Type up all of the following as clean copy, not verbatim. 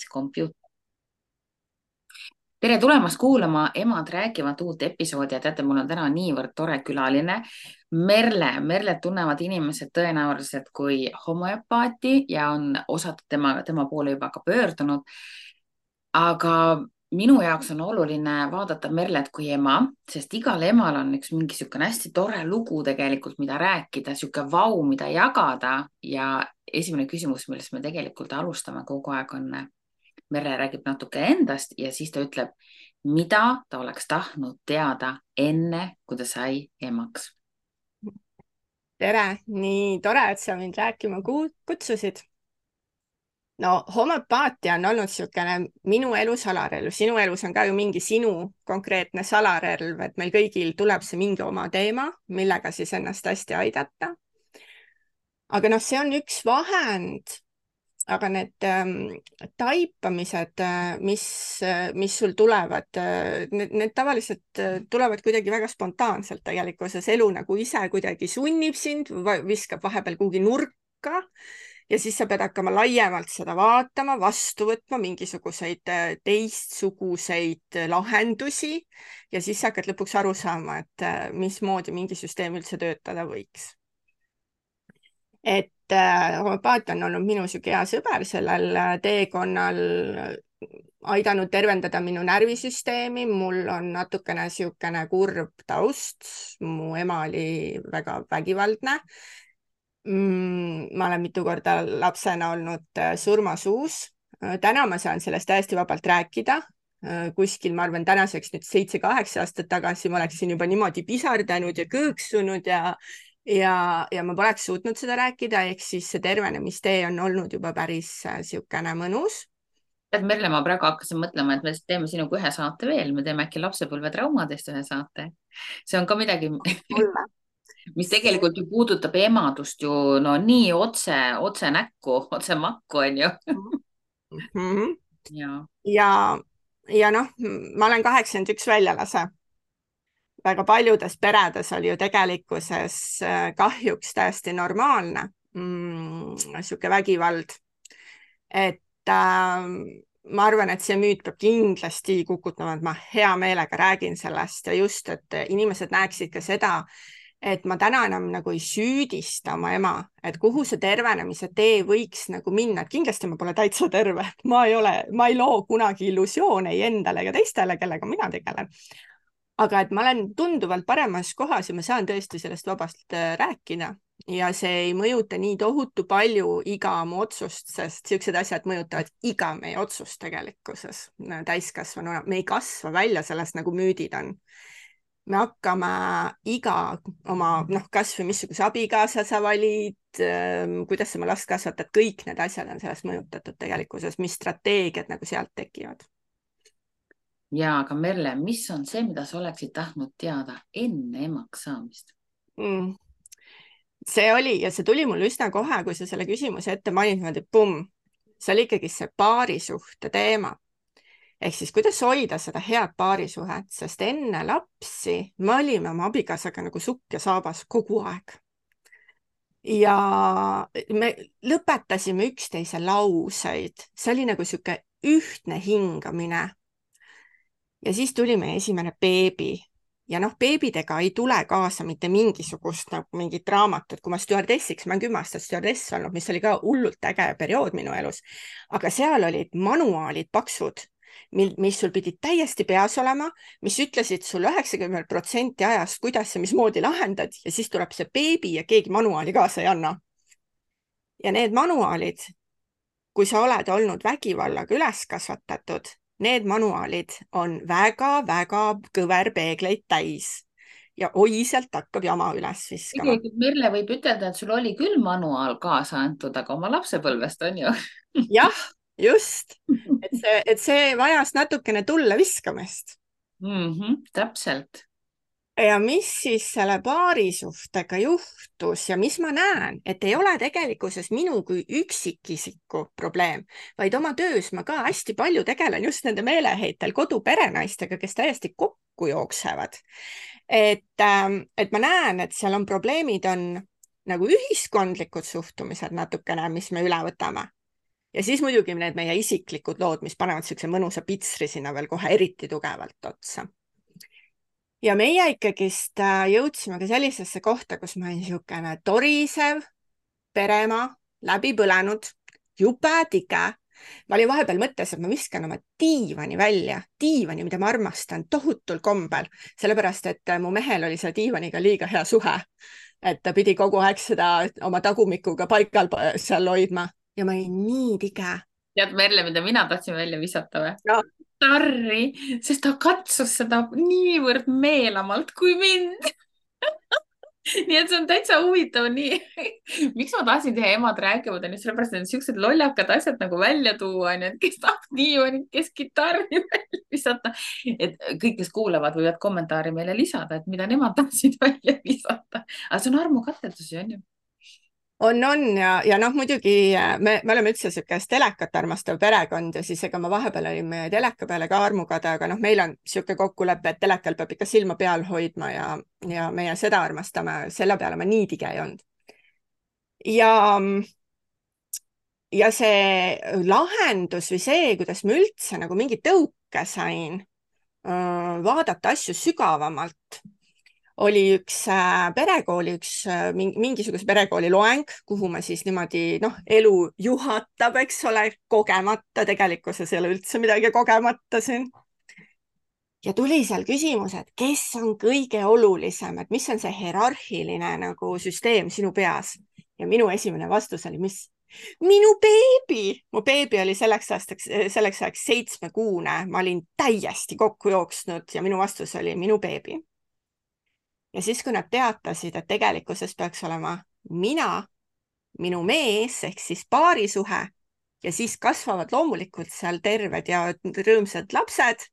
kompuuter. Tere tulemast kuulama Emad räägivad uut episoodi ja teate, mul on täna niivõrd tore külaline. Merlet tunnevad inimesed tõenäoliselt kui homöopaati ja on osad tema poole juba ka pöördunud. Aga minu jaoks on oluline vaadata Merlet kui ema, sest igal emal on üks mingi niisugune hästi tore lugu tegelikult, mida rääkida, niisugune vau, mida jagada. Ja esimene küsimus, millest me tegelikult alustame kogu aeg on Merle räägib natuke endast ja siis ta ütleb, mida ta oleks tahtnud teada enne, kui ta sai emaks. Tere, nii tore, et sa mind rääkima kutsusid. No homöopaatia on olnud niisugune minu elu salarelv. Sinu elus on ka ju mingi sinu konkreetne salarelv, et meil kõigil tuleb see mingi oma teema, millega siis ennast hästi aidata. Aga noh, see on üks vahend, aga need taipamised, mis sul tulevad, need tavaliselt tulevad kuidagi väga spontaanselt tegelikkuses. Elu nagu ise kuidagi sunnib sind, viskab vahepeal kuhugi nurka ja siis sa pead hakkama laiemalt seda vaatama, vastu võtma mingisuguseid teistsuguseid lahendusi ja siis sa hakkad lõpuks aru saama, et mismoodi mingi süsteem üldse töötada võiks. Et homöopaatia on olnud minu siuke hea sõber sellel teekonnal, aidanud tervendada minu närvisüsteemi. Mul on natukene siukene kurb taust. Mu ema oli väga vägivaldne. Ma olen mitu korda lapsena olnud surmasuus. Täna ma saan sellest täiesti vabalt rääkida. Kuskil, ma arvan, tänaseks nüüd 7-8 aastat tagasi ma oleksin juba niimoodi pisardanud ja kõõksunud ja ma poleks suutnud seda rääkida, ehk siis see tervenemistee on olnud juba päris siukene mõnus. Merle, ma praegu hakkasin mõtlema, et me teeme sinuga ühe saate veel, me teeme äkki lapsepõlvetraumadest ühe saate. See on ka midagi, mis tegelikult ju puudutab emadust ju no nii otse näkku, otse makku on ju. Ja noh, ma olen 81 väljalase. Väga paljudes peredes oli ju tegelikkuses kahjuks täiesti normaalne siuke vägivald. Et ma arvan, et see müüt peab kindlasti kukutama, et ma hea meelega räägin sellest ja just, et inimesed näeksid ka seda, et ma täna enam nagu ei süüdista oma ema, et kuhu see tervenemise tee võiks nagu minna, et kindlasti ma pole täitsa terve, ma ei loo kunagi illusioone ei endale ega teistele, kellega mina tegelen. Aga et ma olen tunduvalt paremas kohas ja ma saan tõesti sellest vabast rääkida ja see ei mõjuta nii tohutu palju iga mu otsust, sest siuksed asjad mõjutavad iga meie otsust tegelikkuses täiskasvanuna. Me ei kasva välja sellest, nagu müüdid on. Me hakkame iga oma, kas või missuguse abikaasa sa valid, kuidas sa oma last kasvatad, kõik need asjad on sellest mõjutatud tegelikkuses, mis strateegiad nagu sealt tekivad. Ja, aga Merle, mis on see, mida sa oleksid tahtnud teada enne emaks saamist? See oli ja see tuli mul üsna kohe, kui sa selle küsimuse ette mainid, see oli ikkagi see paarisuhte teema. Ehk siis kuidas hoida seda head paarisuhet, sest enne lapsi me olime oma abikaasaga nagu sukk ja saabas kogu aeg. Ja me lõpetasime üksteise lauseid, see oli nagu siuke ühtne hingamine. Ja siis tuli meie esimene beebi ja beebidega ei tule kaasa mitte mingisugust mingit raamatut. Kui ma stjuardessiks, ma olen 10 aastat stjuardess olnud, mis oli ka hullult äge periood minu elus. Aga seal olid manuaalid paksud, mis sul pidid täiesti peas olema, mis ütlesid sul 90% ajast, kuidas ja mismoodi lahendad ja siis tuleb see beebi ja keegi manuaali kaasa ei anna. Ja need manuaalid, kui sa oled olnud vägivallaga üles kasvatatud, need manuaalid on väga-väga kõverpeegleid täis ja oi, sealt hakkab jama üles viskama. Merle võib ütelda, et sul oli küll manuaal kaasa antud, aga oma lapsepõlvest on ju. Jah, just. Et see vajas natukene tulle viskamist. Täpselt. Ja mis siis selle paarisuhtega juhtus ja mis ma näen, et ei ole tegelikkuses minu kui üksikisiku probleem, vaid oma töös ma ka hästi palju tegelen just nende meeleheitel koduperenaistega, kes täiesti kokku jooksevad. Et ma näen, et seal on probleemid, on nagu ühiskondlikud suhtumised natukene, mis me üle võtame. ja siis muidugi need meie isiklikud lood, mis panevad siukse mõnusa pitsri sinna veel kohe eriti tugevalt otsa. ja meie ikkagist jõudsime ka sellisesse kohta, kus ma olin niisugune torisev peremaa, läbi põlenud, jube tige. Ma olin vahepeal mõttes, et ma viskan oma diivani välja, diivani, mida ma armastan tohutul kombel, sellepärast et mu mehel oli selle diivaniga liiga hea suhe. Et ta pidi kogu aeg seda oma tagumikuga paigal seal hoidma ja ma olin nii tige. Tead, Merle, mida mina tahtsin välja visata või? No. Tarri, sest ta katsus seda niivõrd meelamalt kui mind. Nii et see on täitsa huvitav, nii. Miks ma tahtsin teha Emad räägivad, on just sellepärast, et siuksed lollakad asjad nagu välja tuua, on ju, et kes tahab diivanit, kes kitarri välja visata. Et kõik, kes kuulavad, võivad kommentaari meile lisada, et mida nemad tahtsid välja visata. Aga see on armukatsetusi, on ju. On ja noh, muidugi me oleme üldse siukest telekat armastav perekond ja siis ega ma vahepeal olin meie teleka peale ka armukade, aga noh, meil on siuke kokkulepe, et telekal peab ikka silma peal hoidma ja meie seda armastame, selle peale ma nii tige ei olnud. Ja see lahendus või see, kuidas ma üldse nagu mingi tõuke sain vaadata asju sügavamalt, oli üks perekooli, mingisuguse perekooli loeng, kuhu ma siis niimoodi, elu juhatab, eks ole, kogemata, tegelikkuses ei ole üldse midagi kogemata siin. Ja tuli seal küsimus, et kes on kõige olulisem, et mis on see hierarhiline nagu süsteem sinu peas. Ja minu esimene vastus oli, mis? Minu beebi! Mu beebi oli selleks ajaks 7-kuune, ma olin täiesti kokku jooksnud ja minu vastus oli minu beebi. Ja siis, kui nad teatasid, et tegelikkuses peaks olema mina, minu mees ehk siis paarisuhe ja siis kasvavad loomulikult seal terved ja rõõmsad lapsed,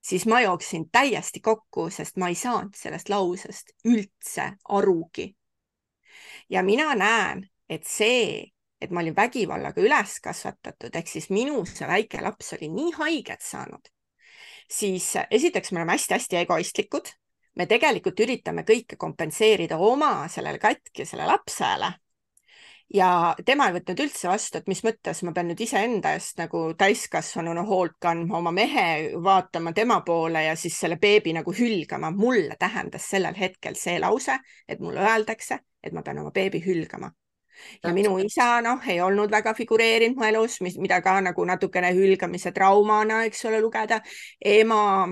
siis ma jooksin täiesti kokku, sest ma ei saanud sellest lausest üldse arugi. Ja mina näen, et see, et ma olin vägivallaga üles kasvatatud, ehk siis minu see väike laps oli nii haiget saanud, siis esiteks me oleme hästi-hästi egoistlikud. Me tegelikult üritame kõike kompenseerida oma sellele katkisele lapsele. Ja tema ei võtnud üldse vastu, et mis mõttes ma pean nüüd iseenda eest nagu täiskasvanuna hoolt kandma, oma mehe vaatama tema poole ja siis selle beebi nagu hülgama. Mulle tähendas sellel hetkel see lause, et mulle öeldakse, et ma pean oma beebi hülgama. Ja minu isa, ei olnud väga figureerinud mu elus, mida ka nagu natukene hülgamise traumana, eks ole, lugeda. Ema...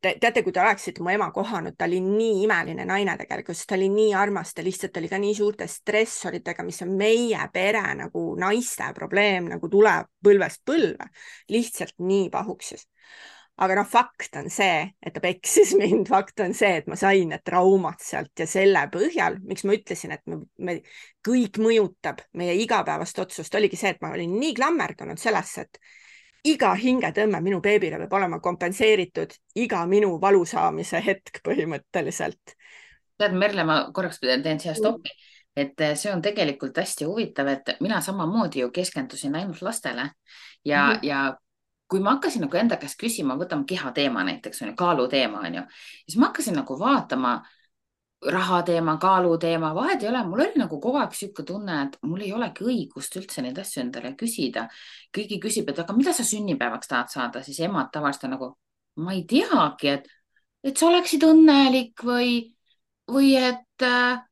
Teate, kui te oleksite mu ema kohanud, ta oli nii imeline naine tegelikult, ta oli nii armas, ta lihtsalt oli ka nii suurte stressoritega, mis on meie pere nagu naiste probleem, nagu tuleb põlvest põlve, lihtsalt nii pahuksis. Aga fakt on see, et ta peksis mind, fakt on see, et ma sain need traumad sealt ja selle põhjal, miks ma ütlesin, et me kõik mõjutab meie igapäevast otsust, oligi see, et ma olin nii klammerdunud sellesse, et iga hingetõmme minu beebile peab olema kompenseeritud iga minu valu saamise hetk põhimõtteliselt. Tead, Merle, ma korraks teen siia stoppi, et see on tegelikult hästi huvitav, et mina samamoodi ju keskendusin ainult lastele ja kui ma hakkasin nagu enda käest küsima, võtame kehateema näiteks, kaaluteema, siis ma hakkasin nagu vaatama raha teema, kaalu teema, vahet ei ole, mul oli nagu kogu aeg siuke tunne, et mul ei olegi õigust üldse neid asju endale küsida. Kõigi küsib, et aga mida sa sünnipäevaks tahad saada, siis emad tavaliselt nagu, ma ei teagi, et sa oleksid õnnelik või et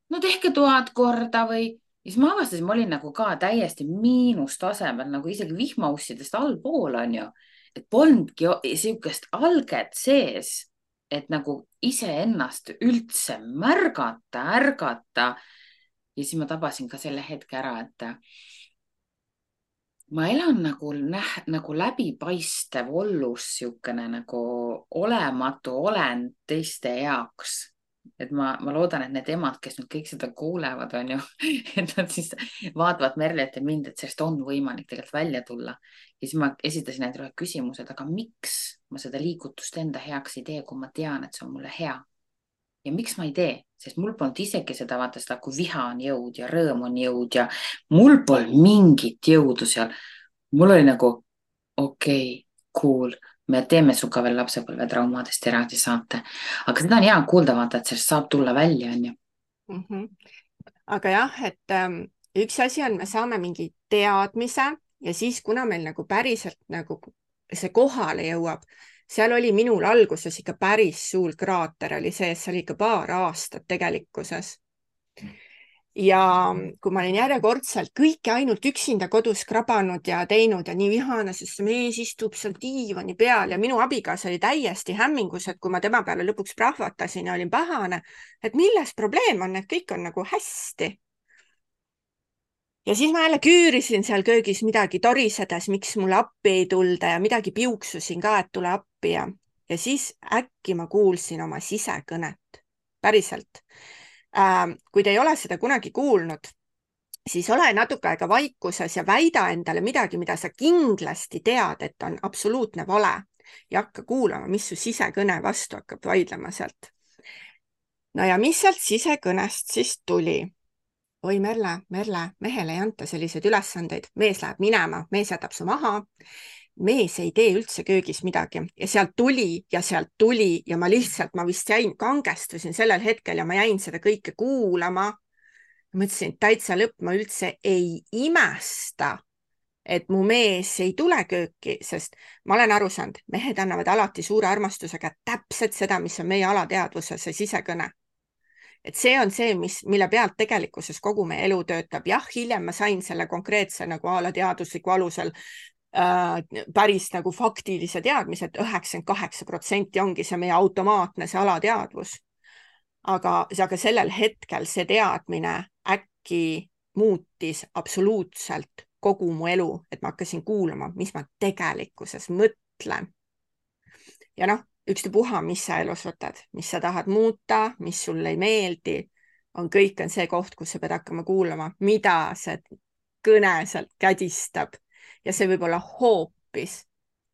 no tehke 1000 korda või. Ja siis ma avastasin, ma olin nagu ka täiesti miinustasemel, nagu isegi vihmaussidest allpool on ju, et polnudki siukest alget sees, et nagu iseennast üldse märgata, ärgata. Ja siis ma tabasin ka selle hetke ära, et ma elan nagu läbipaistev ollus, siukene nagu olematu olend teiste jaoks. Et ma loodan, et need emad, kes nüüd kõik seda kuulevad, on ju, et nad siis vaatavad Merlet ja mind, et sellest on võimalik tegelikult välja tulla. Ja siis ma esitasin endale küsimused, aga miks ma seda liigutust enda heaks ei tee, kui ma tean, et see on mulle hea? Ja miks ma ei tee? Sest mul polnud isegi seda, vaata seda, kui viha on jõud ja rõõm on jõud ja mul polnud mingit jõudu seal. Mul oli nagu, okei, cool. Me teeme suga veel lapsepõlve traumadest eraldi saate. Aga seda on hea kuulda, vaata, et sellest saab tulla välja, on ju. Aga jah, et üks asi on, me saame mingi teadmise ja siis, kuna meil nagu päriselt nagu see kohale jõuab, seal oli minul alguses ikka päris suur kraater oli sees, see oli ikka paar aastat tegelikkuses. Ja kui ma olin järjekordselt kõike ainult üksinda kodus krabanud ja teinud ja nii vihane, sest see mees istub seal diivani peal ja minu abikaasa oli täiesti hämmingus, et kui ma tema peale lõpuks prahvatasin ja olin pahane, et milles probleem on, et kõik on nagu hästi. Ja siis ma jälle küürisin seal köögis midagi torisedes, miks mulle appi ei tulda ja midagi piuksusin ka, et tule appi ja siis äkki ma kuulsin oma sisekõnet. Päriselt. Kui te ei ole seda kunagi kuulnud, siis ole natuke aega vaikuses ja väida endale midagi, mida sa kindlasti tead, et on absoluutne vale ja hakka kuulama, mis su sisekõne vastu hakkab vaidlema sealt. No ja mis sealt sisekõnest siis tuli? Oi Merle, mehele ei anta selliseid ülesandeid, mees läheb minema, mees jätab su maha, mees ei tee üldse köögis midagi ja sealt tuli ja ma vist kangestusin sellel hetkel ja ma jäin seda kõike kuulama. Mõtlesin, et täitsa lõpp, ma üldse ei imesta, et mu mees ei tule kööki, sest ma olen aru saanud, mehed annavad alati suure armastusega täpselt seda, mis on meie alateadvuses, see sisekõne. Et see on see, mille pealt tegelikkuses kogu meie elu töötab. Jah, hiljem ma sain selle konkreetse nagu alateadusliku alusel päris nagu faktilise teadmise, et 98% ongi see meie automaatne, see alateadvus. Aga sellel hetkel see teadmine äkki muutis absoluutselt kogu mu elu, et ma hakkasin kuulama, mis ma tegelikkuses mõtlen. Ja noh, ükstapuha, mis sa elus võtad, mis sa tahad muuta, mis sulle ei meeldi, kõik on see koht, kus sa pead hakkama kuulama, mida see kõne sealt kädistab. Ja see võib olla hoopis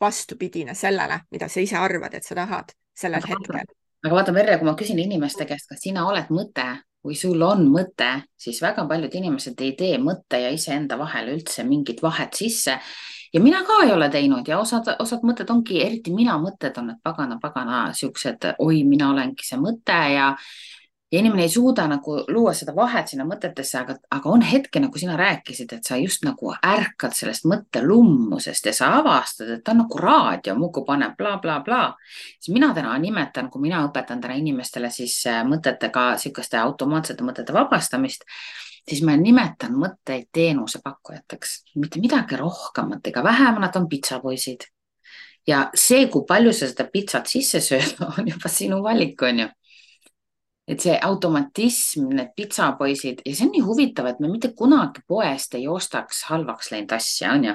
vastupidine sellele, mida sa ise arvad, et sa tahad sellel hetkel. Aga vaata, Merle, kui ma küsin inimeste käest, kas sina oled mõte või sul on mõte, siis väga paljud inimesed ei tee mõtte ja iseenda vahel üldse mingit vahet sisse. Ja mina ka ei ole teinud ja osad mõtted ongi, eriti mina mõtted on, et pagana, siuksed, oi, mina olengi see mõte ja inimene ei suuda nagu luua seda vahet sinna mõtetesse, aga on hetke, nagu sina rääkisid, et sa just nagu ärkad sellest mõttelummusest ja sa avastad, et ta on nagu raadio, muidu paneb bla, bla, bla. Siis mina täna nimetan, kui mina õpetan täna inimestele siis mõtetega, sihukeste automaatsete mõtete vabastamist, siis ma nimetan mõtteid teenusepakkujateks, mitte midagi rohkemat ega vähemat, on pitsapoisid. Ja see, kui palju sa seda pitsat sisse sööd, on juba sinu valik, on ju. Et see automatism, need pitsapoisid ja see on nii huvitav, et me mitte kunagi poest ei ostaks halvaks läinud asja, on ju?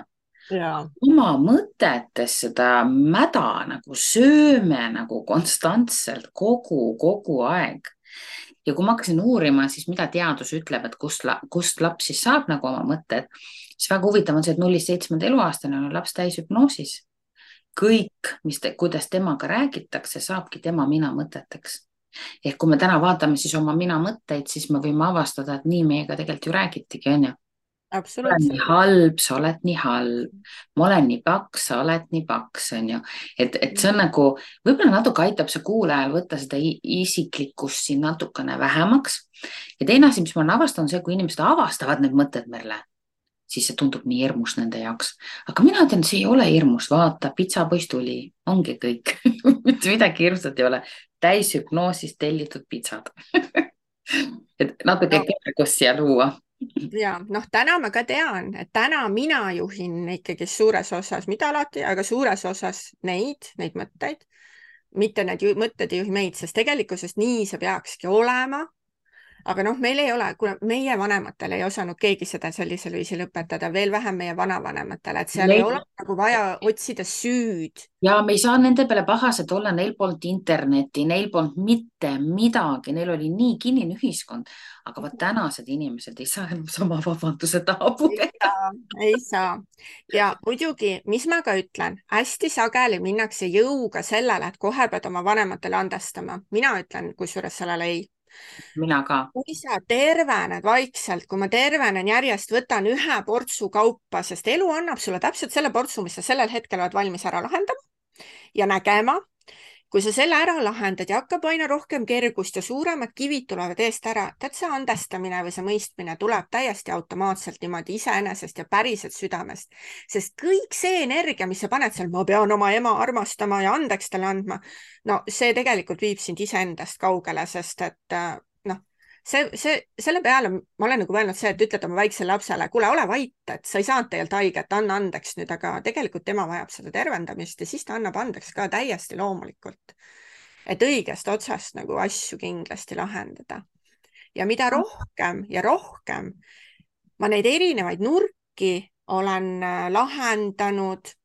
Ja. Oma mõtetes seda mäda nagu sööme nagu konstantselt kogu aeg. Ja kui ma hakkasin uurima, siis mida teadus ütleb, et kust laps siis saab nagu oma mõtted, siis väga huvitav on see, et 0-7 eluaastane on laps täishüpnoosis. Kõik, kuidas temaga räägitakse, saabki tema mina mõteteks. Ehk kui me täna vaatame siis oma mina mõtteid, siis me võime avastada, et nii meiega tegelikult ju räägitigi, on ju? Ma olen nii halb, sa oled nii halb. Ma olen nii paks, sa oled nii paks, on ju. Et see on nagu, võib-olla natuke aitab see kuulajal võtta seda isiklikkust siin natukene vähemaks. Ja teine asi, mis ma olen avastanud, on see, kui inimesed avastavad need mõtted, Merle, siis see tundub nii hirmus nende jaoks. Aga mina ütlen, see ei ole hirmus, vaata, pitsapoiss tuli, ongi kõik. Mitte midagi hirmsat ei ole. Täishüpnoosist tellitud pitsad. Et natuke kergust siia luua. Ja noh, täna ma ka tean, et täna mina juhin ikkagi suures osas, mitte alati, aga suures osas neid mõtteid, mitte need mõtted ei juhi meid, sest tegelikkuses nii see peakski olema. Aga noh, meil ei ole, kuna meie vanematel ei osanud keegi seda sellisel viisil õpetada, veel vähem meie vanavanematele, et seal ei ole nagu vaja otsida süüd. Ja me ei saa nende peale pahased olla, neil polnud internetti, neil polnud mitte midagi, neil oli nii kinnine ühiskond, aga vaat tänased inimesed ei saa enam sama vabanduse taha pugeda. Ei saa. Ja muidugi, mis ma ka ütlen, hästi sageli minnakse jõuga sellele, et kohe pead oma vanematele andestama. Mina ütlen kusjuures sellele ei. Mina ka. Kui sa tervened vaikselt, kui ma tervenen järjest, võtan ühe portsu kaupa, sest elu annab sulle täpselt selle portsu, mis sa sellel hetkel oled valmis ära lahendama ja nägema. kui sa selle ära lahendad ja hakkab aina rohkem kergust ja suuremad kivid tulevad eest ära, tead, see andestamine või see mõistmine tuleb täiesti automaatselt niimoodi iseenesest ja päriselt südamest, sest kõik see energia, mis sa paned seal, ma pean oma ema armastama ja andeks talle andma, no see tegelikult viib sind iseendast kaugele, sest et noh, selle peale ma olen nagu mõelnud see, et ütled oma väiksele lapsele, kuule, ole vait, et sa ei saanud tegelikult haiget, anna andeks nüüd, aga tegelikult tema vajab seda tervendamist ja siis ta annab andeks ka täiesti loomulikult. Et õigest otsast nagu asju kindlasti lahendada. Ja mida rohkem ja rohkem ma neid erinevaid nurki olen lahendanud,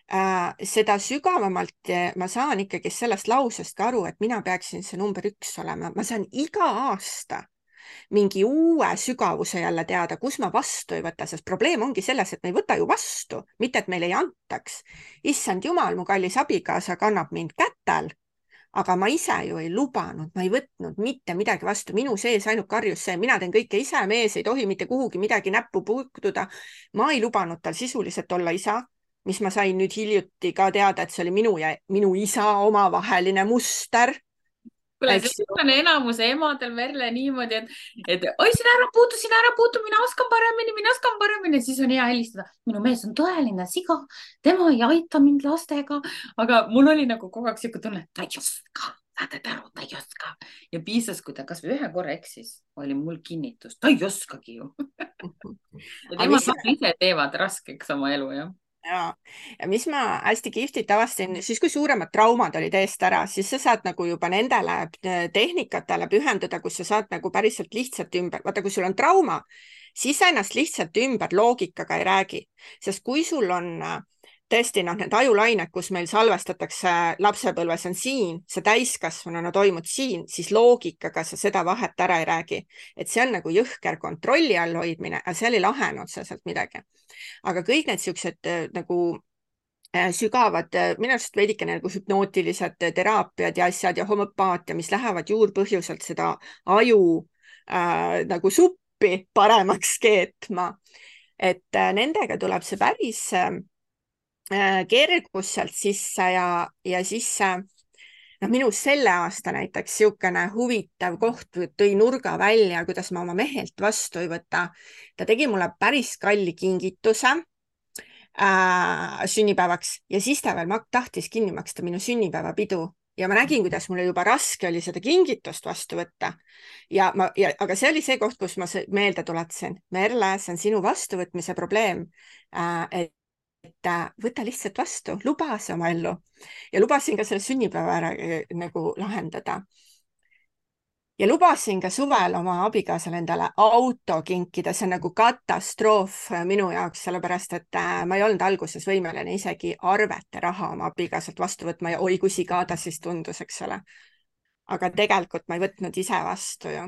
seda sügavamalt ma saan ikkagi sellest lausest ka aru, et mina peaksin see number 1 olema. Ma saan iga aasta mingi uue sügavuse jälle teada, kus ma vastu ei võta, sest probleem ongi selles, et me ei võta ju vastu, mitte et meile ei antaks. Issand jumal, mu kallis abikaasa kannab mind kätel, aga ma ise ju ei lubanud, ma ei võtnud mitte midagi vastu. Minu sees ainult karjus see, mina teen kõike ise, mees ei tohi mitte kuhugi midagi näppu puutuda. Ma ei lubanud tal sisuliselt olla isa, mis ma sain nüüd hiljuti ka teada, et see oli minu ja minu isa omavaheline muster. Kuule, see on enamuse emadel, Merle, niimoodi, et oi, sina ära puutu, mina oskan paremini, siis on hea helistada. Minu mees on tõeline siga, tema ei aita mind lastega, aga mul oli nagu kogu aeg siuke tunne, ta ei oska, saate aru, ta ei oska. Ja piisas, kui ta kas või ühe korra eksis, oli mul kinnitus, ta ei oskagi ju. Ja tema ise teevad raskeks oma elu, jah. Ja mis ma hästi kihvtit avastasin, siis kui suuremad traumad olid eest ära, siis sa saad nagu juba nendele tehnikatele pühenduda, kus sa saad nagu päriselt lihtsalt ümber, vaata, kui sul on trauma, siis sa ennast lihtsalt ümber loogikaga ei räägi, sest kui sul on tõesti need ajulained, kus meil salvestatakse lapsepõlves on siin, see täiskasvanuna toimub siin, siis loogikaga sa seda vahet ära ei räägi. Et see on nagu jõhker kontrolli all hoidmine, aga seal ei lahene otseselt midagi. Aga kõik need siuksed nagu sügavad, minu arust veidike nagu hüpnootilised teraapiad ja asjad ja homöopaatia, mis lähevad juurpõhjuselt seda aju nagu suppi paremaks keetma. Et nendega tuleb see päris kergus sealt sisse ja siis minu selle aasta näiteks niisugune huvitav koht tõi nurga välja, kuidas ma oma mehelt vastu ei võta. Ta tegi mulle päris kalli kingituse sünnipäevaks ja siis ta veel tahtis kinni maksta minu sünnipäevapidu. Ja ma nägin, kuidas mulle juba raske oli seda kingitust vastu võtta. Aga see oli see koht, kus ma meelde tuletasin. Merle, see on sinu vastuvõtmise probleem. Et võta lihtsalt vastu, luba see oma ellu. Ja lubasin ka selle sünnipäeva ära nagu lahendada. Ja lubasin ka suvel oma abikaasale endale auto kinkida, see on nagu katastroof minu jaoks, sellepärast et ma ei olnud alguses võimeline isegi arvete raha oma abikaasalt vastu võtma ja oi, kui siga ta siis tundus, eks ole. Aga tegelikult ma ei võtnud ise vastu ju.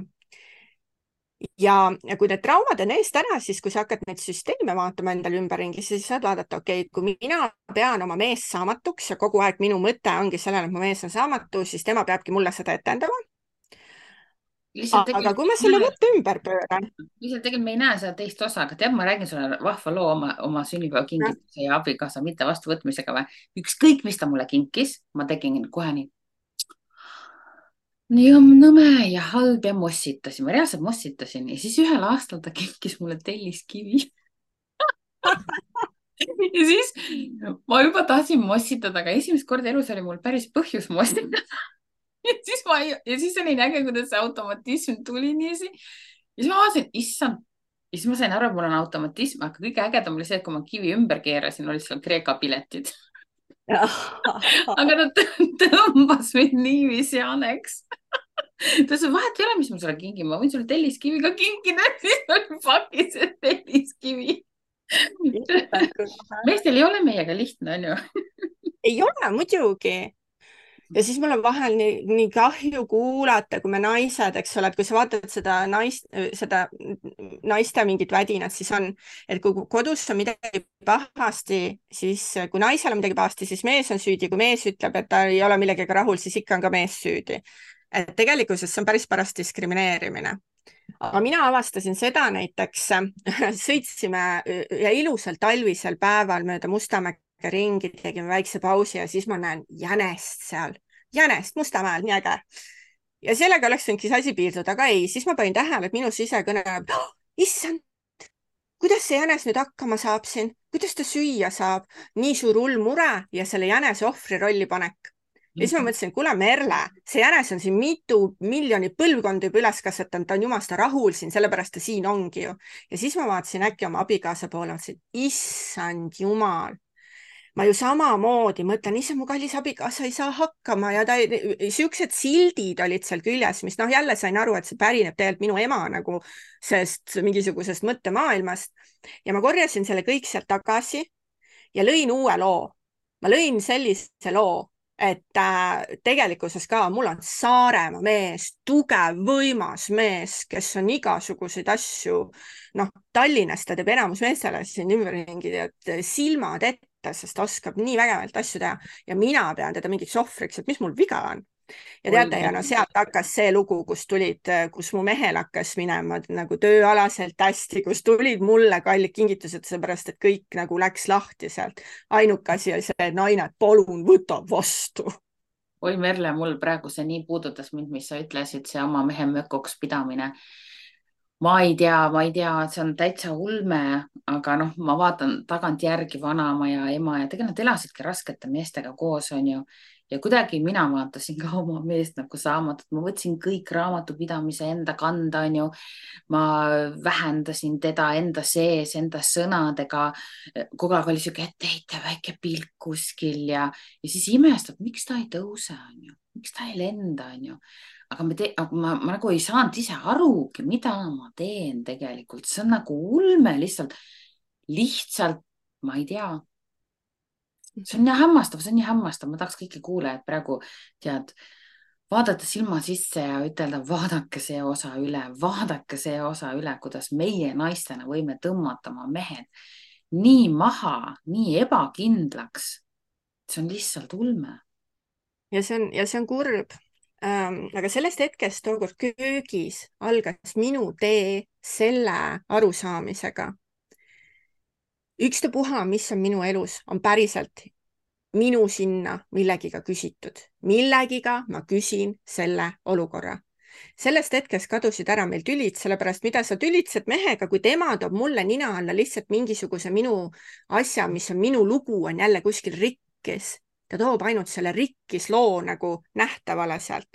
Ja kui need traumad on eest ära, siis kui sa hakkad neid süsteeme vaatama endale ümberringi, siis saad vaadata, okei, kui mina pean oma mees saamatuks ja kogu aeg minu mõte ongi sellele, et mu mees on saamatu, siis tema peabki mulle seda etendama. Aga kui ma selle mõtte ümber pööran. Lihtsalt tegelikult me ei näe seda teist osa, aga tead, ma räägin sulle vahva loo oma sünnipäeva kingituse ja abikaasa mitte vastuvõtmisega või ükskõik, mis ta mulle kinkis, ma tegin kohe nii. Nii on nõme ja halb ja mossitasin, ma reaalselt mossitasin ja siis ühel aastal ta kinkis mulle telliskivi. Ja siis ma juba tahtsin mossitada, aga esimest korda elus oli mul päris põhjus mossitada. Ja siis oli näge, kuidas see automatism tuli niiviisi. Ja siis ma vaatasin, issand. Ja siis ma sain aru, et mul on automatism, aga kõige ägedam oli see, et kui ma kivi ümber keerasin, olid seal Kreeka piletid. Aga ta tõmbas mind niiviisi aneks. Ta ütles, vahet ei ole, mis ma sulle kingin, ma võin sulle telliskivi ka kinkida, siis oli pakis, et telliskivi. Meestel ei ole meiega lihtne, on ju? Ei ole, muidugi. Ja siis mul on vahel nii kahju kuulata, kui me naised, eks ole, et kui sa vaatad seda naiste mingit vädinat, siis on, et kui kodus on midagi pahasti, siis kui naisel on midagi pahasti, siis mees on süüdi. Kui mees ütleb, et ta ei ole millegagi rahul, siis ikka on ka mees süüdi. Et tegelikult see on päris paras diskrimineerimine. Aga mina avastasin seda näiteks, sõitsime ja ilusal talvisel päeval mööda Mustamäge ringi, tegime väikse pausi ja siis ma näen jänest seal. jänest Mustamäel, nii äge. ja sellega oleks võinudki see asi piirduda, aga ei, siis ma panin tähele, et minu sisekõne oh,, issand, kuidas see jänes nüüd hakkama saab siin, kuidas ta süüa saab, nii suur hull mure ja selle jänese ohvri rolli panek. Ja siis ma mõtlesin, kuule Merle, see jänes on siin mitu miljonit põlvkonda juba üles kasvatanud, ta on jumasta rahul siin, sellepärast ta siin ongi ju. Ja siis ma vaatasin äkki oma abikaasa poole, mõtlesin, issand jumal, ma ju samamoodi mõtlen, issand, mu kallis abikaasa ei saa hakkama ja siuksed sildid olid seal küljes, mis noh, jälle sain aru, et see pärineb tegelikult minu ema nagu sest mingisugusest mõttemaailmast. Ja ma korjasin selle kõik sealt tagasi ja lõin uue loo. Ma lõin sellise loo, et tegelikkuses ka mul on Saaremaa mees, tugev, võimas mees, kes on igasuguseid asju, noh, Tallinnas ta teeb enamus meestele siin ümberringi, et silmad ette, sest oskab nii vägevalt asju teha ja mina pean teda mingiks ohvriks, et mis mul viga on. Ja teate, ja no sealt hakkas see lugu, kus mu mehel hakkas minema nagu tööalaselt hästi, kus tulid mulle kallid kingitused, seepärast et kõik nagu läks lahti sealt. Ainuke asi oli see, naine, palun võta vastu. Oi Merle, mul praegu see nii puudutas mind, mis sa ütlesid, see oma mehe mökoks pidamine. Ma ei tea, see on täitsa ulme, aga noh, ma vaatan tagantjärgi vanaema ja ema ja tegelikult nad elasidki raskete meestega koos, on ju. Ja kuidagi mina vaatasin ka oma meest nagu saamatut, ma võtsin kõik raamatupidamise enda kanda, on ju. Ma vähendasin teda enda sees, enda sõnadega. Kogu aeg oli siuke etteheite, väike pilk kuskil ja siis imestab, miks ta ei tõuse, on ju. Miks ta ei lenda, on ju. Aga ma nagu ei saanud ise arugi, mida ma teen tegelikult. See on nagu ulme lihtsalt, ma ei tea. See on nii hämmastav, ma tahaks kõiki kuulajad praegu vaadata silma sisse ja ütelda, vaadake see osa üle, kuidas meie naistena võime tõmmata oma mehed nii maha, nii ebakindlaks. See on lihtsalt ulme. Ja see on kurb. Aga sellest hetkest tookord köögis algas minu tee selle arusaamisega. Ükstapuha, mis on minu elus, on päriselt minu sinna millegiga küsitud. Millegiga ma küsin selle olukorra. Sellest hetkest kadusid ära meil tülid, sellepärast mida sa tülitsed mehega, kui tema toob mulle nina alla lihtsalt mingisuguse minu asja, mis on minu lugu, on jälle kuskil rikkis. Ta toob ainult selle rikkis loo nagu nähtavale sealt.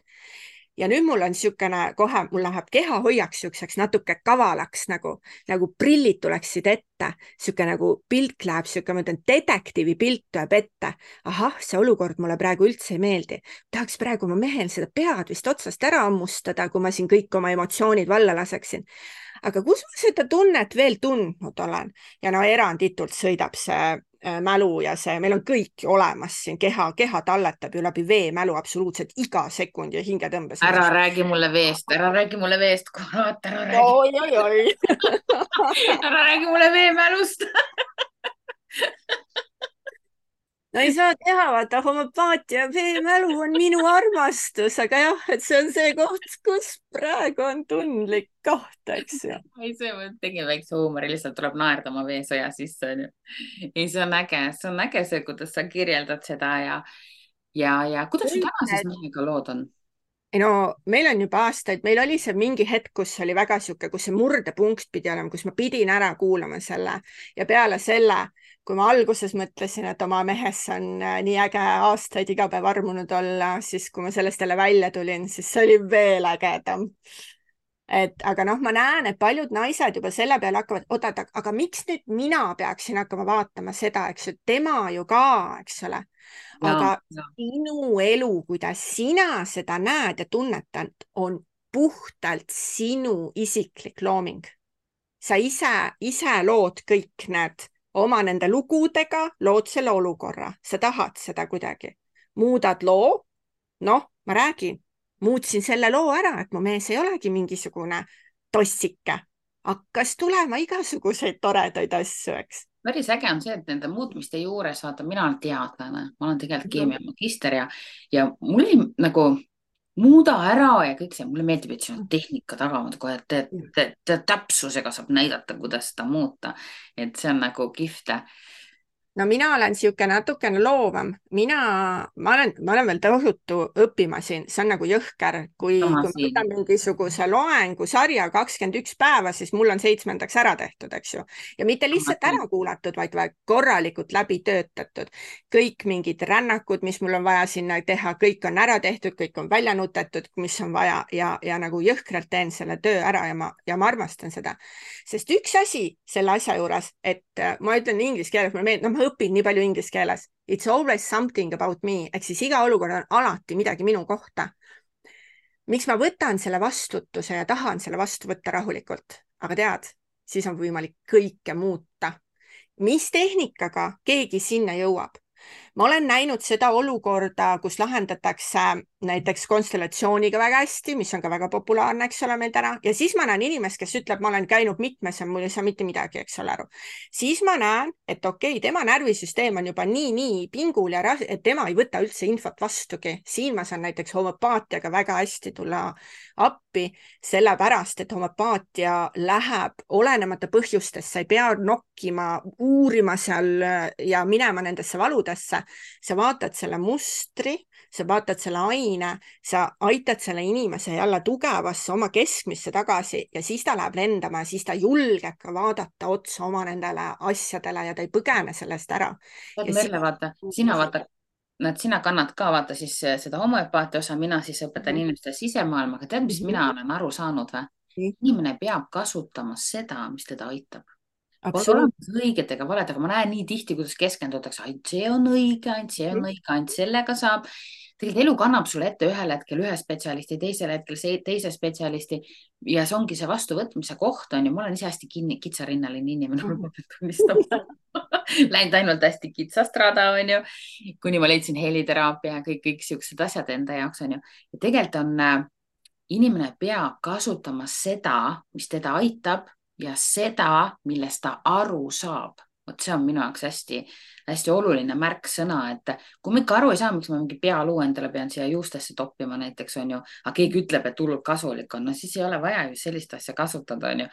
Ja nüüd mul on siukene kohe, mul läheb kehahoiaks siukseks natuke kavalaks, nagu prillid tuleksid ette, siuke nagu pilt läheb, siuke, ma ütlen, detektiivi pilt tuleb ette. Ahah, see olukord mulle praegu üldse ei meeldi. Tahaks praegu oma mehel seda pead vist otsast ära ammustada, kui ma siin kõik oma emotsioonid valla laseksin. Aga kus ma seda tunnet veel tundnud olen? Ja no eranditult sõidab see mälu ja see, meil on kõik olemas siin, keha talletab ju läbi veemälu absoluutselt iga sekund ja hingetõmbes. Ära räägi mulle veest, kurat, ära räägi. Oi. Ära räägi mulle veemälust. No ei saa teha, vaata, homöopaatia veemälu on minu armastus, aga jah, et see on see koht, kus praegu on tundlik koht, eks ju. Ei, see tegin väikse huumori, lihtsalt tuleb naerda oma veesõja sisse. Ei, see on äge see, kuidas sa kirjeldad seda ja kuidas sul täna siis mehega lood on? Ei no, meil on juba aastaid, meil oli see mingi hetk, kus oli väga siuke, kus see murdepunkt pidi olema, kus ma pidin ära kuulama selle ja peale selle, kui ma alguses mõtlesin, et oma mehes on nii äge aastaid iga päev armunud olla, siis kui ma sellest jälle välja tulin, siis see oli veel ägedam. Aga noh, ma näen, et paljud naised juba selle peale hakkavad, oodata, aga miks nüüd mina peaksin hakkama vaatama seda, eks ju, tema ju ka, eks ole. Aga sinu elu, kuidas sina seda näed ja tunnetad, on puhtalt sinu isiklik looming. Sa ise lood kõik need oma nende lugudega, lood selle olukorra. Sa tahad seda kuidagi. Muudad loo, noh, ma räägin, muutsin selle loo ära, et mu mees ei olegi mingisugune tossike. Hakkas tulema igasuguseid toredaid asju, eks. Päris äge on see, et nende muutmiste juures, vaata, mina olen teadlane, ma olen tegelikult keemiamagister ja mul oli nagu muuda ära ja kõik see, mulle meeldib, et siin on tehnika tagamaad kohe, et täpsusega saab näidata, kuidas seda muuta. Et see on nagu kihvt. no mina olen sihuke natukene loovam, ma olen veel tohutu õppima siin, see on nagu jõhker, sama kui ma siin. võtan mingisuguse loengu sarja 21 päeva, siis mul on 7. ära tehtud, eks ju. ja mitte Sama lihtsalt siin. ära kuulatud, vaid korralikult läbi töötatud. kõik mingid rännakud, mis mul on vaja sinna teha, kõik on ära tehtud, kõik on välja nutetud, mis on vaja ja nagu jõhkralt teen selle töö ära ja ma armastan seda. Sest üks asi selle asja juures, et ma ütlen inglise keeles, mulle meeldib, ma õpin nii palju inglise keeles. It's always something about me, ehk siis iga olukord on alati midagi minu kohta. miks ma võtan selle vastutuse ja tahan selle vastu võtta rahulikult, aga tead, siis on võimalik kõike muuta. mis tehnikaga keegi sinna jõuab? ma olen näinud seda olukorda, kus lahendatakse näiteks konstellatsiooniga väga hästi, mis on ka väga populaarne, eks ole, meil täna. ja siis ma näen inimest, kes ütleb, ma olen käinud mitmes ja mul ei saa mitte midagi, eks ole, aru. siis ma näen, et okei, tema närvisüsteem on juba nii pingul ja et tema ei võta üldse infot vastugi. siin ma saan näiteks homöopaatiaga väga hästi tulla appi, sellepärast et homöopaatia läheb olenemata põhjustest, sa ei pea nokkima, uurima seal ja minema nendesse valudesse. sa vaatad selle mustri, sa vaatad selle aine, sa aitad selle inimese jälle tugevasse oma keskmisse tagasi ja siis ta läheb lendama ja siis ta julgeb ka vaadata otsa oma nendele asjadele ja ta ei põgene sellest ära. Merle, vaata, sina kannad ka vaata siis seda homöopaatia osa, mina siis õpetan inimestele sisemaailma, aga tead, mis mina olen aru saanud või? Inimene peab kasutama seda, mis teda aitab. Pole olemas õiget ega valet, aga ma näen nii tihti, kuidas keskendutakse, ainult see on õige, ainult see on õige, ainult sellega saab. Tegelikult elu kannab sulle ette ühel hetkel ühe spetsialisti, teisel hetkel teise spetsialisti ja see ongi see vastuvõtmise koht on ju. Ma olen ise hästi kitsarinnaline inimene, ma pean tunnistama. Läinud ainult hästi kitsast rada on ju, kuni ma leidsin heliteraapia ja kõik siuksed asjad enda jaoks on ju. Ja tegelikult on, inimene peab kasutama seda, mis teda aitab ja seda, millest ta aru saab. Vot see on minu jaoks hästi oluline märksõna, et kui ma ikka aru ei saa, miks ma mingi pealuu endale pean siia juustesse toppima näiteks on ju, aga keegi ütleb, et hullult kasulik on, no siis ei ole vaja ju sellist asja kasutada on ju.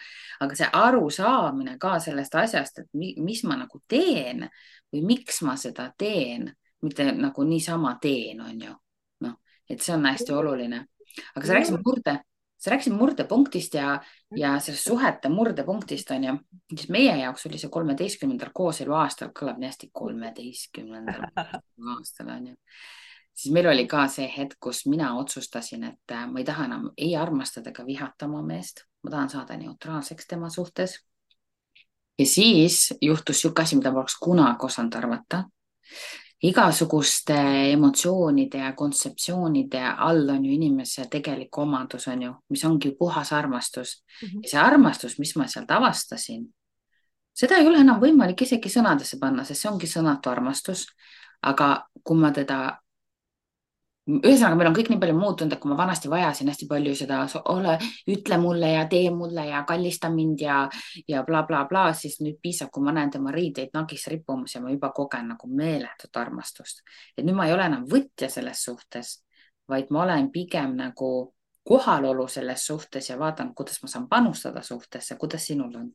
Aga see arusaamine ka sellest asjast, et mis ma nagu teen või miks ma seda teen, mitte nagu niisama teen on ju. Noh, et see on hästi oluline. Aga sa rääkisid murdepunktist ja sellest suhete murdepunktist on ju, siis meie jaoks oli see 13. kooselu aastal, kõlab nii hästi 13. aastal on ju. Siis meil oli ka see hetk, kus mina otsustasin, et ma ei taha enam ei armastada ega vihata oma meest, ma tahan saada neutraalseks tema suhtes. Ja siis juhtus siuke asi, mida ma oleks kunagi osanud arvata. Igasuguste emotsioonide ja kontseptsioonide all on ju inimese tegelik omadus on ju, mis ongi puhas armastus. Ja see armastus, mis ma sealt avastasin, seda ei ole enam võimalik isegi sõnadesse panna, sest see ongi sõnatu armastus. Aga kui ma teda, ühesõnaga meil on kõik nii palju muutunud, et kui ma vanasti vajasin hästi palju seda, ütle mulle ja tee mulle ja kallista mind ja bla, bla, bla, siis nüüd piisab, kui ma näen tema riideid nagis rippumas ja ma juba kogen nagu meeletut armastust. Et nüüd ma ei ole enam võtja selles suhtes, vaid ma olen pigem nagu kohalolu selles suhtes ja vaatan, kuidas ma saan panustada suhtesse, kuidas sinul on?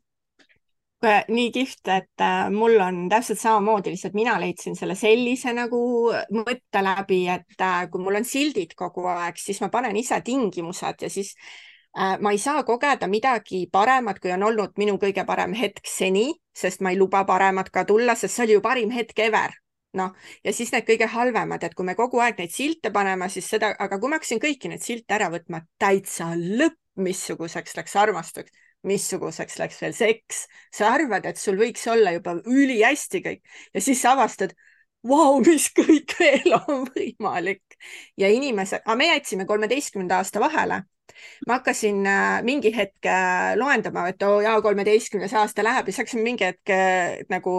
Nii kihvt, et mul on täpselt samamoodi, lihtsalt mina leidsin selle sellise nagu mõtte läbi, et kui mul on sildid kogu aeg, siis ma panen ise tingimused ja siis ma ei saa kogeda midagi paremat, kui on olnud minu kõige parem hetk seni, sest ma ei luba paremat ka tulla, sest see oli ju parim hetk ever. Noh, ja siis need kõige halvemad, et kui me kogu aeg neid silte paneme, siis seda, aga kui ma hakkasin kõiki neid silte ära võtma, täitsa lõpp, missuguseks läks armastus, missuguseks läks veel seks. Sa arvad, et sul võiks olla juba ülihästi kõik ja siis sa avastad, vau, mis kõik veel on võimalik. Ja inimesed, aga me jätsime 13. aasta vahele. Ma hakkasin mingi hetk loendama, et jaa, 13. aasta läheb ja siis hakkasime mingi hetk nagu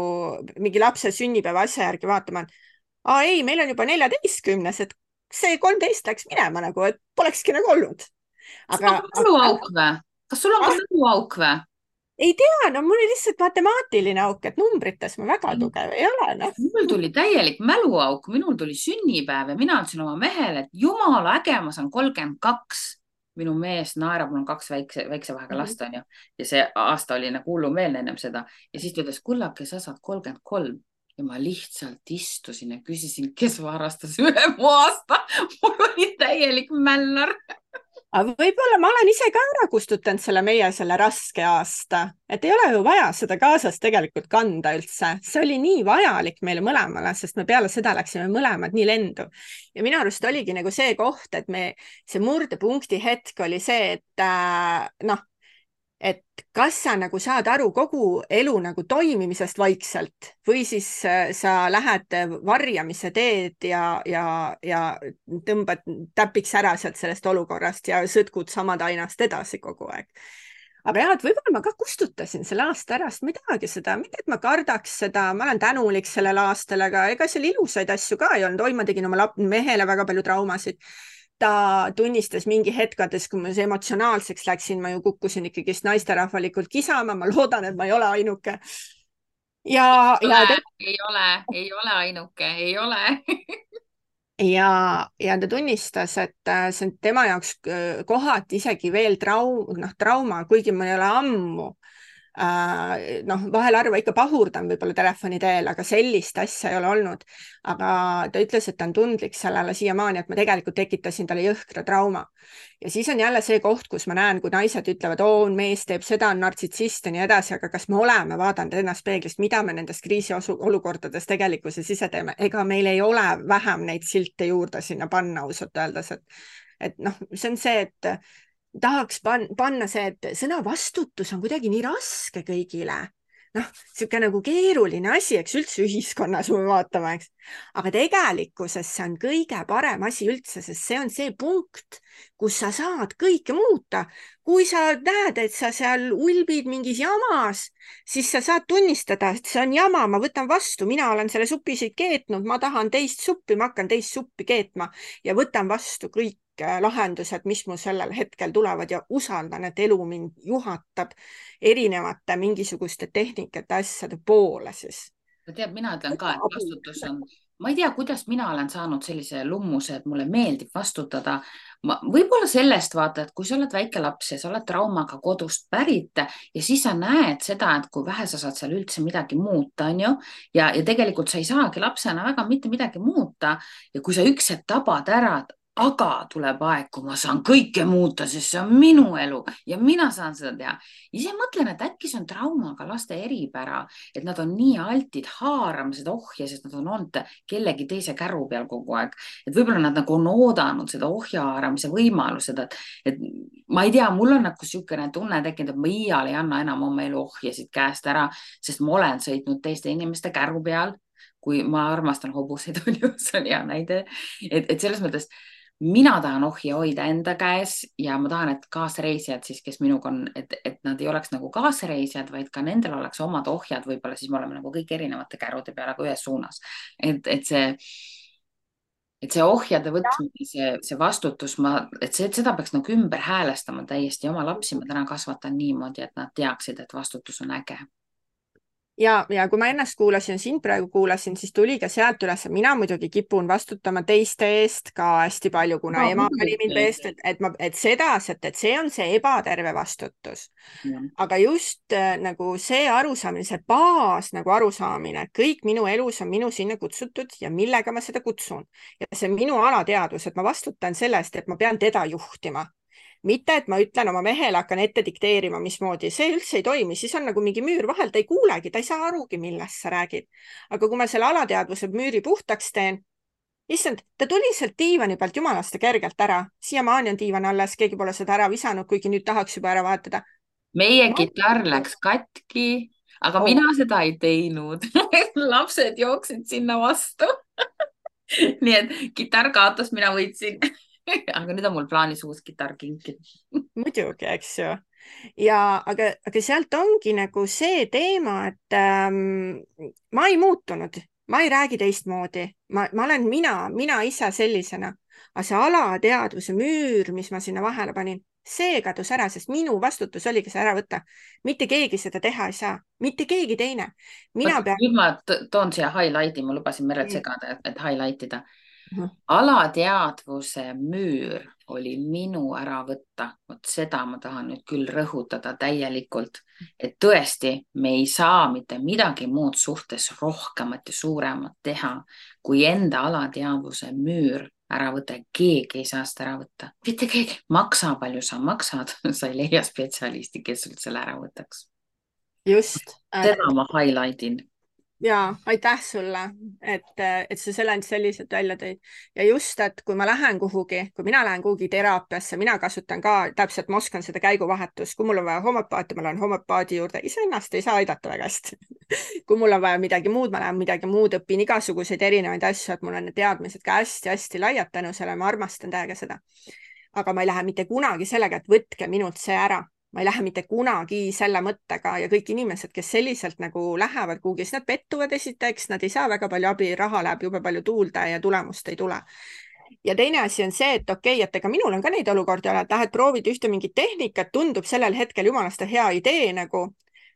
mingi lapse sünnipäeva asja järgi vaatama. Ei, meil on juba 14, et see 13 läks minema nagu, et polekski nagu olnud. Kas sul on ka mäluauk või? Ei tea, no mul oli lihtsalt matemaatiline auk, et numbrites ma väga tugev ei ole. No. Mul tuli täielik mäluauk, minul tuli sünnipäev ja mina ütlesin oma mehele, et jumala äge, ma saan 32. Minu mees naerab, mul on 2 väikse vahega last on ju. Ja see aasta oli nagu hullumeelne ennem seda. Ja siis ta ütles, kullake, sa saad 33. ja ma lihtsalt istusin ja küsisin, kes varastas üle mu aasta. Mul oli täielik mällar. aga võib-olla ma olen ise ka ära kustutanud selle raske aasta, et ei ole ju vaja seda kaasas tegelikult kanda üldse. See oli nii vajalik meile mõlemale, sest me peale seda läksime mõlemad nii lendu. Ja minu arust oligi nagu see koht, et see murdepunkti hetk oli see, et kas sa nagu saad aru kogu elu nagu toimimisest vaikselt või siis sa lähed varjamise teed ja tõmbad täpiks ära sealt sellest olukorrast ja sõtkud samad ainast edasi kogu aeg. Aga jah, et võib-olla ma ka kustutasin selle aasta ära, sest ma ei tahagi seda, mitte et ma kardaks seda, ma olen tänulik sellel aastal, aga ega seal ilusaid asju ka ei olnud. Oi, ma tegin oma mehele väga palju traumasid. Ta tunnistas mingi hetkades, kui ma emotsionaalseks läksin, ma ju kukkusin ikkagist naisterahvalikult kisama, ma loodan, et ma ei ole ainuke. Ei ole ainuke, ei ole. ja ta tunnistas, et see on tema jaoks kohati isegi veel trauma, kuigi mul ei ole ammu. Vahel harva ikka pahurdan võib-olla telefoni teel, aga sellist asja ei ole olnud. Aga ta ütles, et ta on tundlik sellele siiamaani, et ma tegelikult tekitasin talle jõhkra trauma. Ja siis on jälle see koht, kus ma näen, kui naised ütlevad, mees teeb seda, on nartsissist ja nii edasi, aga kas me oleme vaadanud ennast peeglist, mida me nendest kriisiolukordades tegelikkuses ise teeme? Ega meil ei ole vähem neid silte juurde sinna panna, ausalt öeldes, et see on see, et tahaks panna see, et sõna vastutus on kuidagi nii raske kõigile. Siuke nagu keeruline asi, eks üldse ühiskonnas me vaatame, eks. Aga tegelikkuses see on kõige parem asi üldse, sest see on see punkt, kus sa saad kõike muuta. Kui sa näed, et sa seal ulbid mingis jamas, siis sa saad tunnistada, et see on jama, ma võtan vastu, mina olen selle supisid keetnud, ma tahan teist suppi, ma hakkan teist suppi keetma ja võtan vastu kõik lahendused, mis mu sellel hetkel tulevad ja usaldan, et elu mind juhatab erinevate mingisuguste tehnikate asjade poole siis. Tead, mina ütlen ka, et vastutus on, ma ei tea, kuidas mina olen saanud sellise lummuse, et mulle meeldib vastutada. Võib-olla sellest vaata, et kui sa oled väike laps ja sa oled traumaga kodust pärit ja siis sa näed seda, et kui vähe sa saad seal üldse midagi muuta, on ju, ja tegelikult sa ei saagi lapsena väga mitte midagi muuta ja kui sa üks hetk tabad ära, aga tuleb aeg, kui ma saan kõike muuta, sest see on minu elu ja mina saan seda teha. Ise mõtlen, et äkki see on traumaga laste eripära, et nad on nii altid haarama seda ohja, sest nad on olnud kellegi teise käru peal kogu aeg. Et võib-olla nad nagu on oodanud seda ohja haaramise võimalused, et ma ei tea, mul on nagu siukene tunne tekkinud, et ma iial ei anna enam oma elu ohjasid käest ära, sest ma olen sõitnud teiste inimeste käru peal, kui ma armastan hobuseid, see on hea näide, et selles mõttes mina tahan ohja hoida enda käes ja ma tahan, et kaasreisijad siis, kes minuga on, et nad ei oleks nagu kaasreisijad, vaid ka nendel oleks omad ohjad, võib-olla siis me oleme nagu kõik erinevate kärude peal, aga ühes suunas. Et see ohjade võtmine, see vastutus, seda peaks nagu ümber häälestama täiesti. Oma lapsi ma täna kasvatan niimoodi, et nad teaksid, et vastutus on äge. Ja kui ma ennast kuulasin, sind praegu kuulasin, siis tuli ka sealt üles, mina muidugi kipun vastutama teiste eest ka hästi palju, kuna ema pani mind eest, et see on see ebaterve vastutus. Aga just nagu see arusaamine, see baas nagu arusaamine, kõik minu elus on minu sinna kutsutud ja millega ma seda kutsun. Ja see minu alateadvus, et ma vastutan selle eest, et ma pean teda juhtima. Mitte, et ma ütlen oma mehele, hakkan ette dikteerima, mismoodi, see üldse ei toimi, siis on nagu mingi müür vahel, ta ei kuulegi, ta ei saa arugi, millest sa räägid. Aga kui ma selle alateadvuse müüri puhtaks teen, issand, ta tuli sealt diivani pealt jumalaste kergelt ära. Siiamaani on diivan alles, keegi pole seda ära visanud, kuigi nüüd tahaks juba ära vahetada. Meie kitarr läks katki, aga mina seda ei teinud. Lapsed jooksid sinna vastu. Nii et kitarr kaotas, mina võitsin. Aga nüüd on mul plaanis uus kitarr kinkida. Muidugi, eks ju. Aga sealt ongi nagu see teema, et ma ei muutunud, ma ei räägi teistmoodi. Ma olen mina ise sellisena. Aga see alateadvuse müür, mis ma sinna vahele panin, see kadus ära, sest minu vastutus oligi see ära võtta. Mitte keegi seda teha ei saa. Mitte keegi teine. Nüüd ma toon siia highlighti, ma lubasin Merelt segada, et highlightida. alateadvuse müür oli minu ära võtta. Vot seda ma tahan nüüd küll rõhutada täielikult, et tõesti, me ei saa mitte midagi muud suhtes rohkemat ja suuremat teha, kui enda alateadvuse müür ära võtta. Keegi ei saa seda ära võtta. Mitte keegi. Maksa, palju sa maksad, sa ei leia spetsialisti, kes sul selle ära võtaks. just, Seda ma highlightin. ja aitäh sulle, et sa selle selliselt välja tõid. Ja just, et kui ma lähen kuhugi, kui mina lähen kuhugi teraapiasse, mina kasutan ka täpselt, ma oskan seda käiguvahetust, kui mul on vaja homöopaati, ma lähen homöopaadi juurde, iseennast ei saa aidata väga hästi. kui mul on vaja midagi muud, ma lähen midagi muud, õpin igasuguseid erinevaid asju, et mul on need teadmised ka hästi-hästi laiad tänu sellele, ma armastan täiega seda. Aga ma ei lähe mitte kunagi sellega, et võtke minult see ära. Ma ei lähe mitte kunagi selle mõttega ja kõik inimesed, kes selliselt nagu lähevad kuhugi, siis nad pettuvad esiteks, nad ei saa väga palju abi, raha läheb jube palju tuulde ja tulemust ei tule. Ja teine asi on see, et okei, et ega minul on ka neid olukordi ole, et lähed proovid ühte mingit tehnikat, tundub sellel hetkel jumalast hea idee nagu,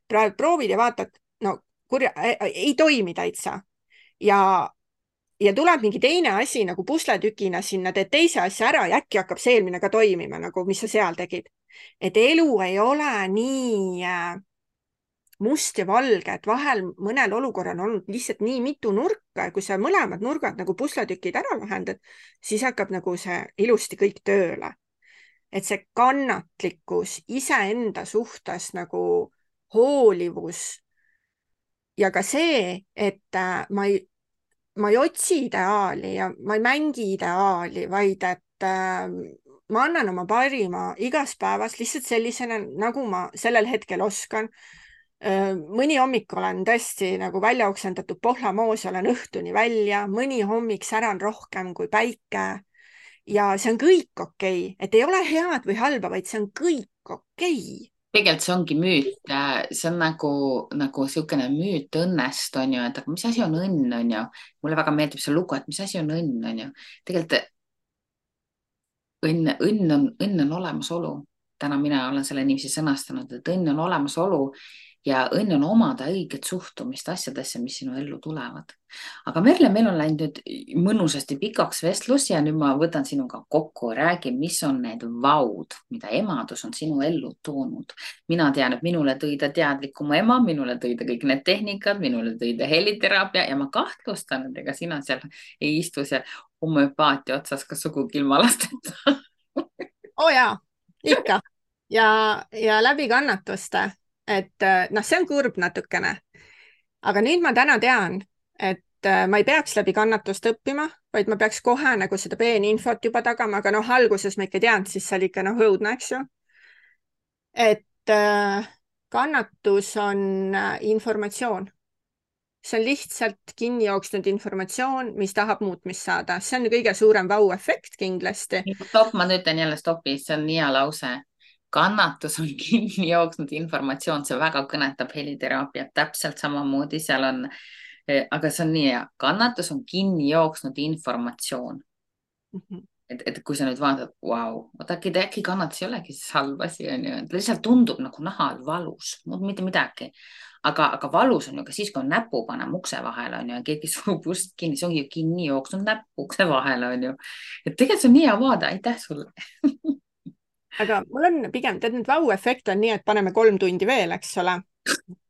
proovid ja vaatad, no kurja, ei toimi täitsa. Ja tuleb mingi teine asi nagu pusletükina sinna, teed teise asja ära ja äkki hakkab see eelmine ka toimima, nagu mis sa seal tegid. Et elu ei ole nii must ja valge, et vahel mõnel olukorral on olnud lihtsalt nii mitu nurka ja kui sa mõlemad nurgad nagu pusletükid ära lahendad, siis hakkab nagu see ilusti kõik tööle. Et see kannatlikkus, iseenda suhtes nagu hoolivus ja ka see, et ma ei otsi ideaali ja ma ei mängi ideaali, vaid et ma annan oma parima igas päevas lihtsalt sellisena, nagu ma sellel hetkel oskan. Mõni hommik olen tõesti nagu välja oksendatud pohlamoos, olen õhtuni välja, mõni hommik säran rohkem kui päike ja see on kõik okei. Et ei ole head või halba, vaid see on kõik okei. Tegelikult see ongi müüt, see on nagu niisugune müüt õnnest, on ju, et aga mis asi on õnn, on ju. Mulle väga meeldib see lugu, et mis asi on õnn, on ju. Tegelikult õnn on olemasolu. Täna mina olen selle niiviisi sõnastanud, et õnn on olemasolu ja õnn on omada õiget suhtumist asjadesse, mis sinu ellu tulevad. Aga Merle, meil on läinud nüüd mõnusasti pikaks vestlus ja nüüd ma võtan sinuga kokku, räägi, mis on need vaud, mida emadus on sinu ellu toonud. Mina tean, et minule tõi ta teadlikuma ema, minule tõi ta kõik need tehnikad, minule tõi ta heliteraapia ja ma kahtlustan, et ega sina seal ei istu seal homöopaatia otsas ka sugugi ilma lasteta. Jaa, ikka. Ja läbi kannatuste. Et see on kurb natukene. Aga nüüd ma täna tean, et ma ei peaks läbi kannatust õppima, vaid ma peaks kohe nagu seda peeninfot juba tagama, aga alguses ma ikka tean, siis see oli ikka õudne, eks ju. Et kannatus on informatsioon. See on lihtsalt kinni jooksnud informatsioon, mis tahab muutmist saada. See on kõige suurem vau-efekt kindlasti. Stopp, ma ütlen jälle stopi, see on nii hea lause. Kannatus on kinni jooksnud informatsioon, see väga kõnetab heliteraapiat täpselt samamoodi, seal on, aga see on nii hea, kannatus on kinni jooksnud informatsioon. Et kui sa nüüd vaatad, vau, äkki kannatus ei olegi siis halb asi, on ju, et lihtsalt tundub nagu nahal valus, mitte midagi. Aga valus on ju ka siis, kui on näpu panema ukse vahele, on ju, ja keegi surub ust kinni, see ongi ju kinni jooksnud näpu ukse vahele, on ju. Et tegelikult see on nii hea vaade, aitäh sulle. Aga mul on pigem, tead, nüüd vau-efekt on nii, et paneme 3 tundi veel, eks ole.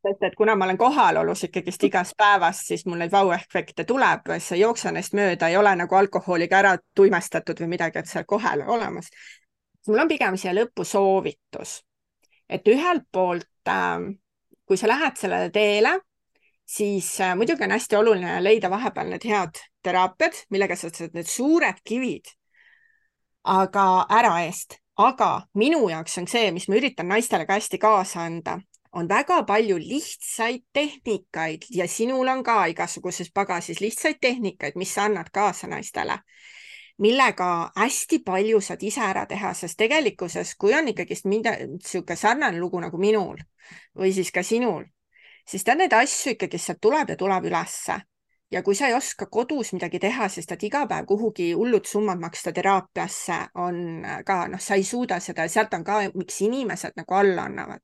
Et kuna ma olen kohalolus ikkagist igas päevas, siis mul neid vau-efekte tuleb, see jooksa neist mööda, ei ole nagu alkoholiga ära tuimestatud või midagi, et seal kohal olemas. Mul on pigem siia lõppu soovitus. Et ühelt poolt, kui sa lähed sellele teele, siis muidugi on hästi oluline leida vahepeal need head teraapiad, millega sa saad need suured kivid aga ära eest. Aga minu jaoks on see, mis ma üritan naistele ka hästi kaasa anda, on väga palju lihtsaid tehnikaid ja sinul on ka igasuguses pagasis lihtsaid tehnikaid, mis sa annad kaasa naistele, millega hästi palju saad ise ära teha, sest tegelikkuses, kui on ikkagist niisugune sarnane lugu nagu minul või siis ka sinul, siis ta neid asju ikkagi sealt tuleb ja tuleb ülesse. Ja kui sa ei oska kodus midagi teha, sest et iga päev kuhugi hullud summad maksta teraapiasse on ka, sa ei suuda seda ja sealt on ka, miks inimesed nagu alla annavad.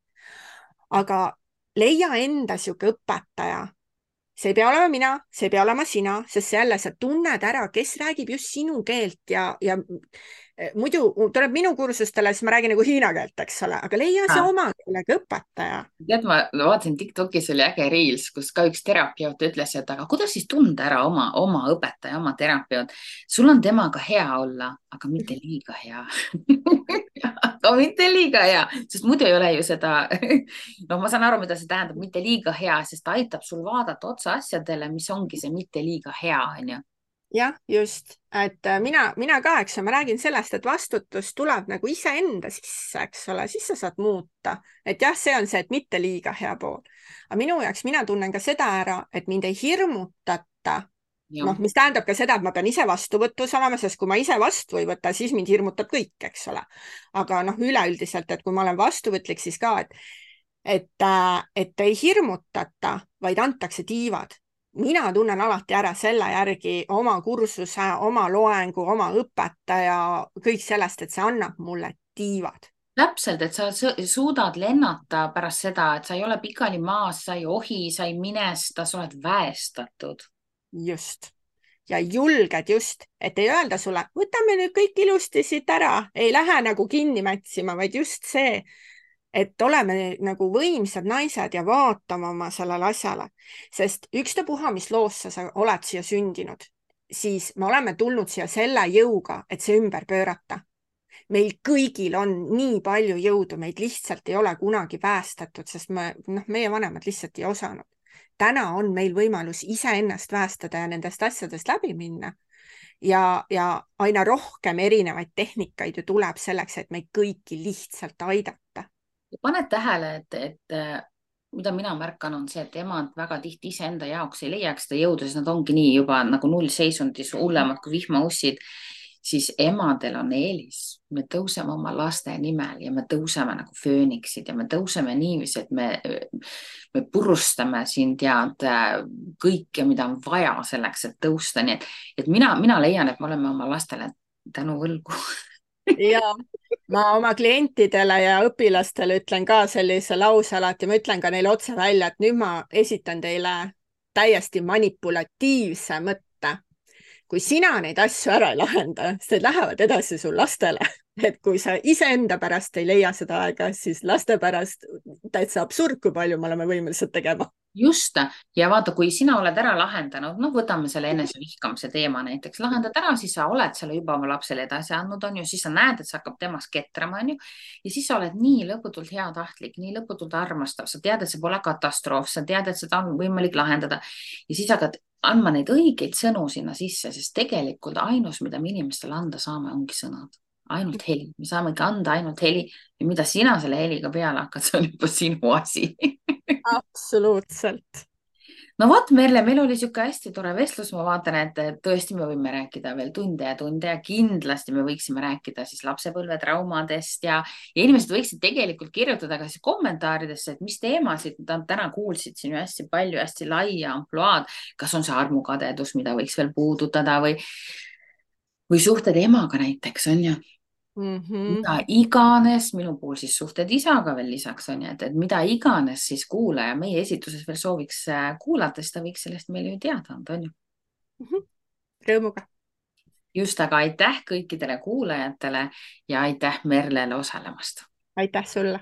Aga leia enda siuke õpetaja, see ei pea olema mina, see ei pea olema sina, sest jälle sa tunned ära, kes räägib just sinu keelt ja muidu tuleb minu kursustele, siis ma räägin nagu hiina keelt, eks ole, aga leia see oma keelega õpetaja. tead, ma vaatasin TikTokis oli äge reels, kus ka üks terapeut ütles, et aga kuidas siis tunda ära oma õpetaja, oma terapeut. sul on temaga hea olla, aga mitte liiga hea aga mitte liiga hea, sest muidu ei ole ju seda noh, ma saan aru, mida see tähendab, mitte liiga hea, sest ta aitab sul vaadata otsa asjadele, mis ongi see mitte liiga hea, onju. jah, just, et mina ka, eks ma räägin sellest, et vastutus tuleb nagu iseenda sisse, eks ole, siis sa saad muuta. Et jah, see on see, et mitte liiga hea pool. Aga minu jaoks, mina tunnen ka seda ära, et mind ei hirmutata. Noh, mis tähendab ka seda, et ma pean ise vastuvõtus olema, sest kui ma ise vastu ei võta, siis mind hirmutab kõik, eks ole. Aga noh, üleüldiselt, et kui ma olen vastuvõtlik, siis ka, et ei hirmutata, vaid antakse tiivad. Mina tunnen alati ära selle järgi oma kursuse, oma loengu, oma õpetaja, kõik sellest, et see annab mulle tiivad. Täpselt, et sa suudad lennata pärast seda, et sa ei ole pikali maas, sa ei ohi, sa ei minesta, sa oled väestatud. Just. Ja julged just, et ei öelda sulle, võtame nüüd kõik ilusti siit ära, ei lähe nagu kinni mätsima, vaid just see, et oleme nagu võimsad naised ja vaatame oma sellele asjale, sest ükstapuha, mis loosse sa oled siia sündinud, siis me oleme tulnud siia selle jõuga, et see ümber pöörata. Meil kõigil on nii palju jõudu, meid lihtsalt ei ole kunagi päästetud, sest meie vanemad lihtsalt ei osanud. Täna on meil võimalus iseennast päästada ja nendest asjadest läbi minna. Ja aina rohkem erinevaid tehnikaid ju tuleb selleks, et meid kõiki lihtsalt aidata. Paned tähele, et mida mina märkan, on see, et emad väga tihti iseenda jaoks ei leiaks seda jõudu, sest nad ongi nii juba nagu nullseisundis hullemad kui vihmaussid, siis emadel on eelis. Me tõuseme oma laste nimel ja me tõuseme nagu fööniksid ja me tõuseme niiviisi, et me purustame siin tead kõike, mida on vaja selleks, et tõusta. Nii et mina leian, et me oleme oma lastele tänu võlgu. Ja ma oma klientidele ja õpilastele ütlen ka sellise lause alati, ma ütlen ka neile otse välja, et nüüd ma esitan teile täiesti manipulatiivse mõtte. Kui sina neid asju ära ei lahenda, siis need lähevad edasi sul lastele. Et kui sa iseenda pärast ei leia seda aega, siis laste pärast täitsa absurd, kui palju me oleme võimelised tegema. Just, ja vaata, kui sina oled ära lahendanud, võtame selle enesevihkamise teema näiteks, lahendad ära, siis sa oled selle juba oma lapsele edasi andnud, on ju, siis sa näed, et see hakkab temast ketrama, on ju, ja siis sa oled nii lõputult heatahtlik, nii lõputult armastav, sa tead, et see pole katastroof, sa tead, et seda on võimalik lahendada ja siis hakkad andma neid õigeid sõnu sinna sisse, sest tegelikult ainus, mida me inimestele anda saame, ongi sõnad. Ainult heli, me saamegi anda ainult heli ja mida sina selle heliga peale hakkad, see on juba sinu asi. Absoluutselt. No vot, Merle, meil oli siuke hästi tore vestlus, ma vaatan, et tõesti me võime rääkida veel tunde ja kindlasti me võiksime rääkida siis lapsepõlvetraumadest ja inimesed võiksid tegelikult kirjutada ka siis kommentaaridesse, et mis teemasid nad täna kuulsid siin ju hästi palju, hästi laia ampluaad, kas on see armukadedus, mida võiks veel puudutada või suhted emaga näiteks, on ju. Mida iganes, minu puhul siis suhted isaga veel lisaks on ju, et mida iganes siis kuulaja meie esituses veel sooviks kuulata, siis ta võiks sellest meile ju teada anda, on ju. Rõõmuga. Just, aga aitäh kõikidele kuulajatele ja aitäh Merlele osalemast. Aitäh sulle.